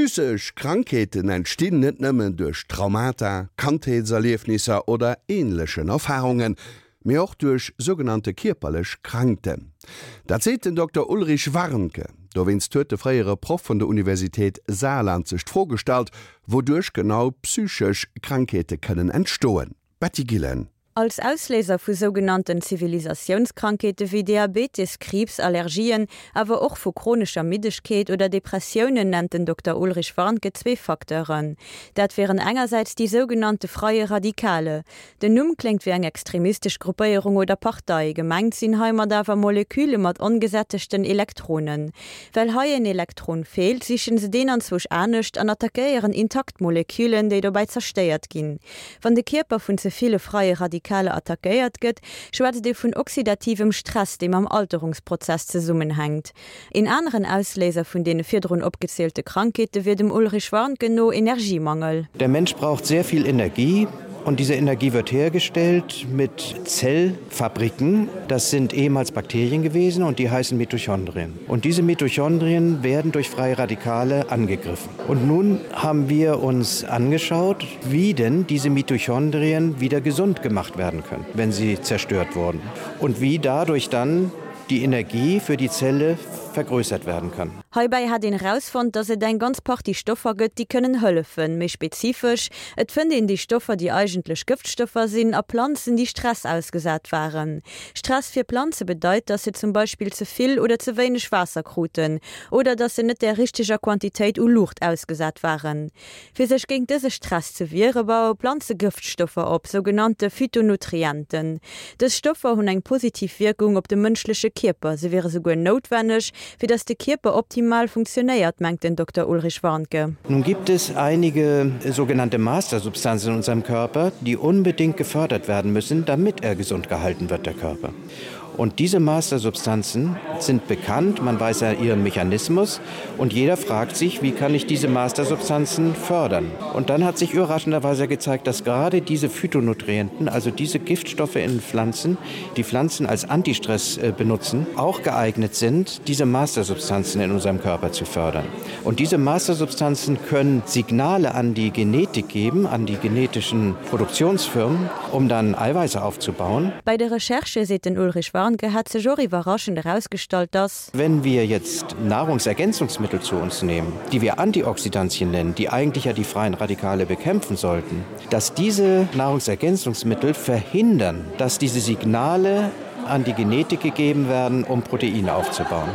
Psychesch Krankheeten entstinn net nëmmen duerch Traumata, Kandheetserliefnisser oder änlechen Erfarungen, mee och duerch sougenannte kierperlech Krankten. Dat seet den Dokter Ulrich Warnke. Dowéinst huet de fréiere Proff vun der Universitéit Saarland sech d'Fro gestallt, wouduerch genau psychesch Krankheete kënnen entstoen. Betty Gillen. Als Ausléiser vu sougenannten Zivilisatiounskrankheete wéi Diabetes, Kriibs, Allergien, awer och vu chronescher Middegkeet oder Depressiounen nennt den Dokter Ulrich Warnke zwee Facteuren. Dat wieren engersäits déi sougenannte freie Radikale. Den Numm kléngt wéi eng extremistesch Gruppéierung oder Partei, gemengt sinn heimat awer Moleküle mat ongesättegten Elektronen. Well hei een Elektron feelt, sichen se deen anzwousch anescht an attackéieren intakt Molekülen, déi dobäi zerstéiert ginn. Wann de Kierper vun ze ville freie Radikale attackéiert gëtt, schwätzt ee vun oxidativem Stress, dee mam Alterungsprozess zesummenhänkt. Een aneren Ausléiser vun deene virdrun opgezielte Krankheete wier dem Ulrich Warnke no Energiemangel. Der Mensch braucht sehr viel Energie und diese Energie wird hergestellt mit Zellfabriken. Das sind ehemals Bakterien gewesen und die heißen Mitochondrien. Und diese Mitochondrien werden durch freie Radikale angegriffen. Und nun haben wir uns angeschaut, wie denn diese Mitochondrien wieder gesund gemacht werden können, wenn sie zerstört wurden und wie dadurch dann die Energie für die Zelle vergrößert werden kann. Heibäi hätt een erausfonnt, dass et eng ganz Partie Stoffer gëtt, déi kënnen hëllefen. Méi spezifesch, et fënnt een déi Stoffer, déi eigentlech Gëftstoffer sinn, a Planzen, déi Stress ausgesat waren. Stress fir Planze bedeit, dass se zum Beispill ze vill oder ze wéineg Waasser kruten oder dass se net där richteger Quantitéit u Luucht ausgesat waren. Fir sech géint dëse Stress ze wiere baue Planze Gëftstoffer op, sougenannte Phytonutrienten. Dës Stoffer hunn eng positiv Wierkung op de mënschleche Kierper, se wiere souguer noutwenneg, fir datt de Kierper optimal funktionéiert, mengt den Dokter Ulrich Warnke. Nun gibt es einige sogenannte Mastersubstanzen in unserem Körper, die unbedingt gefördert werden müssen, damit er gesund gehalten wird, der Körper. Und diese Mastersubstanzen sind bekannt, man weiß ja ihren Mechanismus und jeder fragt sich, wie kann ich diese Mastersubstanzen fördern? Und dann hat sich überraschenderweise gezeigt, dass gerade diese Phytonutrienten, also diese Giftstoffe in Pflanzen, die Pflanzen als Antistress äh, benutzen, auch geeignet sind, diese Mastersubstanzen in unserem Körper zu fördern. Und diese Mastersubstanzen können Signale an die Genetik geben, an die genetischen Produktionsfirmen, um dann Eiweiße aufzubauen. Bei de Recherchë, seet den Ulrich Warnke, hätt sech och iwwerraschend erausgestallt, dass. Wenn wir jetzt Nahrungsergänzungsmittel zu uns nehmen, die wir Antioxidantien nennen, die eigentlich ja die freien Radikale bekämpfen sollten, dass diese Nahrungsergänzungsmittel verhindern, dass diese Signale an die Genetik gegeben werden, um Proteine aufzubauen.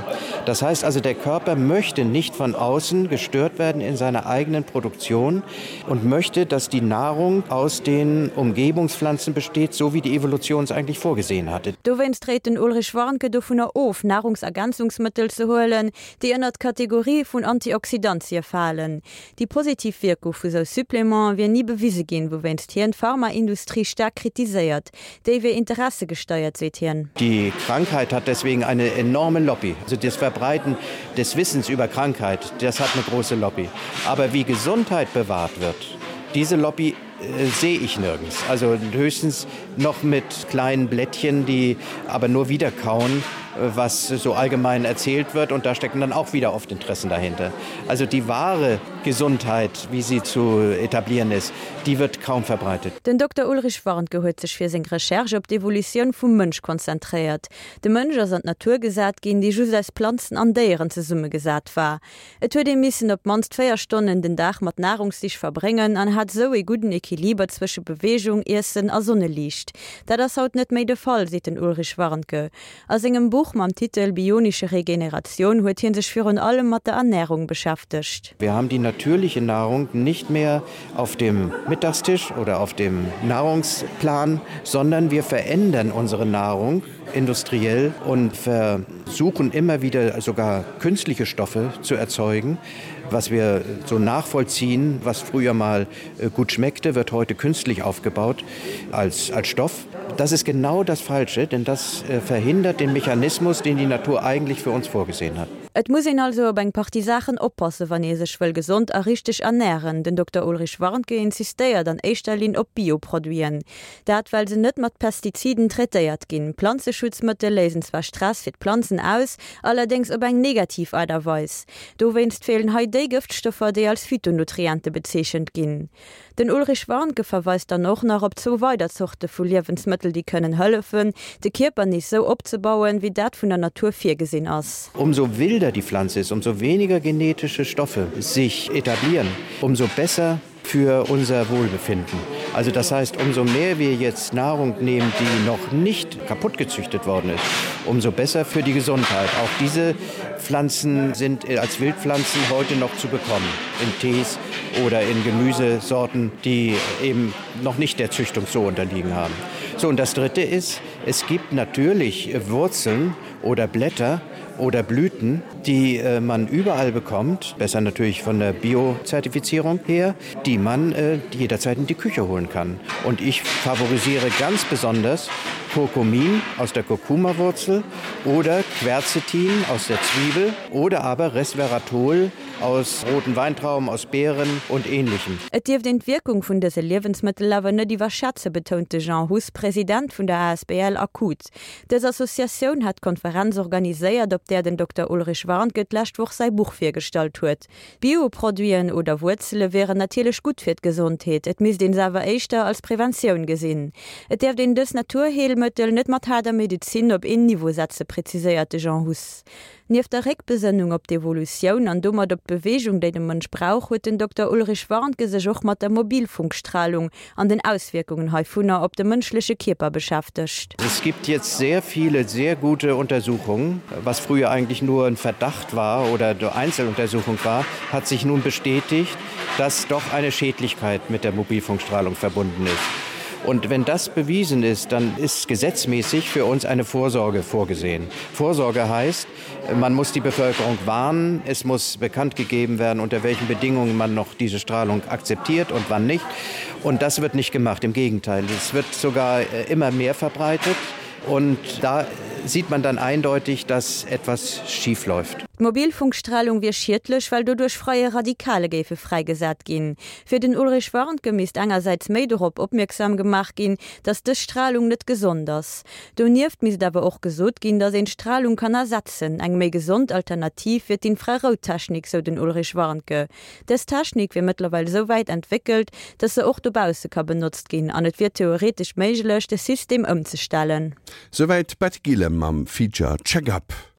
Das heißt also, der Körper möchte nicht von außen gestört werden in seiner eigenen Produktion und möchte, dass die Nahrung aus den Umgebungspflanzen besteht, so wie die Evolution es eigentlich vorgesehen hatte. Dowéinst réit den Ulrich Warnke dovunner of, Nahrungsergänzungsmëttel ze huelen, déi ënnert d'Kategorie vun Antioxidantie falen. Déi positiv Wierkung vu sou Supplémenten wier ni bewise ginn, wouwéinst hien d'Pharmaindustrie staark kritiséiert. Déi wier interessegesteiert, seet hien. Die Krankheit hat deswegen eine enorme Lobby. Also das Verbreiten des Wissens über Krankheit, das hat eine große Lobby. Aber wie Gesundheit bewahrt wird, diese Lobby äh, sehe ich nirgends. Also höchstens noch mit kleinen Blättchen, die aber nur wiederkauen, äh, was so allgemein erzählt wird und da stecken dann auch wieder oft Interessen dahinter. Also die wahre Gesundheit, wie sie zu etablieren ist, die wird kaum verbreitet. Den Dokter Ulrich Warnke huet sech fir seng Recherche op d'Evolutioun vum Mënsch konzentréiert. De Mënsch ass an d'Natur gesat ginn, déi just aus Planzen an Déieren zesummegesat war. Et huet ee missen op d'mannst 4 Stonnen den Dag mat Nahrungssich verbréngen an hat esou ee gudden Equiliber zwësche Beweegung, Iessen a Sonneliicht. Dat ass haut net méi de Fall, seet den Ulrich Warnke. A sengem Buch mam Titel Bionische Regeneration huet hie sech virun allem mat der Ernärung beschäftegt. Wir haben die natürliche Nahrung nicht mehr auf dem Mittagstisch oder auf dem Nahrungsplan, sondern wir verändern unsere Nahrung industriell und versuchen immer wieder sogar künstliche Stoffe zu erzeugen. Was wir so nachvollziehen, was früher mal äh, gut schmeckte, wird heute künstlich aufgebaut als, als Stoff. Das ist genau das Falsche, denn das äh, verhindert den Mechanismus, den die Natur eigentlich für uns vorgesehen hat. Et muss een also op eng Partie Saachen oppassen, wann ee sech wëll gesond a richteg ernären. Den Dokter Ulrich Warnke insistéiert an éischter Linn op Bio-Produiten. Dat well se net mat Pestiziden traitéiert ginn. Planzeschutzmëttel léisen zwar Stress fir d'Planzen aus, allerdéngs op eng negativ Aart a Weis. Dowéinst feelen hei déi Gëftstoffer, déi als Phytonutriente bezeechent ginn. Den Ulrich Warnke verweist dann och nach op zwou weider Zorte vu Liewensmëttel, déi kënnen hëllefen, de Kierper nees sou opzebauen, wéi dat vun der Natur virgesinn ass. Umso wilder die Pflanze ist, umso weniger genetische Stoffe sich etablieren, umso besser für unser Wohlbefinden. Also das heißt, umso mehr wir jetzt Nahrung nehmen, die noch nicht kaputt gezüchtet worden ist, umso besser für die Gesundheit. Auch diese Pflanzen sind als Wildpflanzen heute noch zu bekommen, in Tees oder in Gemüsesorten, die eben noch nicht der Züchtung so unterliegen haben. So und das dritte ist, es gibt natürlich Wurzeln oder Blätter oder Blüten, die äh, man überall bekommt, besser natürlich von der Biozertifizierung her, die man äh, jederzeit in die Küche holen kann. Und ich favorisiere ganz besonders Kurkumin aus der Kurkumawurzel oder Quercetin aus der Zwiebel oder aber Resveratrol aus roten Weintrauben, aus Beeren und ähnlichem. Et dierft een d'Wierkung vun dëse Liewensmëttel awer net iwwerschätzen, betount de Jean Huss, President vun der asbl Akut. Dës Associatioun hat d'Konferenz organiséiert, op där den Dokter Ulrich Warnke d'lescht Woch säi Buch virgestallt huet. Bioproduiten oder Wuerzele wieren natierlech gutt fir d'Gesondheet, et misst een se awer éischter als Preventioun gesinn. Et däerft een dës Naturheelmëttel net mat haarder Medezin op een Niveau setze, preziséiert de Jean Huss. Nieft der Réckbesënnung op d'Evolutioun an domat op d'Beweegung, déi de Mënsch brauch, huet den Dokter Ulrich Warnke sech och mat der Mobilfunkstralung an den Auswierkungen heivunner op de mënschleche Kierper beschäftegt. Es gibt jetzt sehr viele sehr gute Untersuchungen. Was früher eigentlich nur ein Verdacht war oder Einzeluntersuchung war, hat sich nun bestätigt, dass doch eine Schädlichkeit mit der Mobilfunkstrahlung verbunden ist. Und wenn das bewiesen ist, dann ist gesetzmäßig für uns eine Vorsorge vorgesehen. Vorsorge heißt, man muss die Bevölkerung warnen, es muss bekannt gegeben werden, unter welchen Bedingungen man noch diese Strahlung akzeptiert und wann nicht. Und das wird nicht gemacht, im Gegenteil. Es wird sogar äh, immer mehr verbreitet. Und da sieht man dann eindeutig, dass etwas schief läuft. D'Mobilfunkstralung wier schiedlech, well doduerch freie Radikale géife fräigesat ginn. Fir den Ulrich Warnke misst engersäits méi dorop opmierksam gemaach ginn, datt dës Stralung net gesond ass. Donieft misst awer och gesot ginn, datt een d'Stralung kann ersetzen. Eng méi gesond Alternativ wier d'Infrarouttechnik, sou den Ulrich Warnke. Dës Technik wier mëttlerweil esou wäit entwéckelt, datt se och dobausse ka benotzt ginn an et wier theoretesch méiglech, de System ëmzestellen. Souwäit d'Betty Gillen mam Feature Check-Up.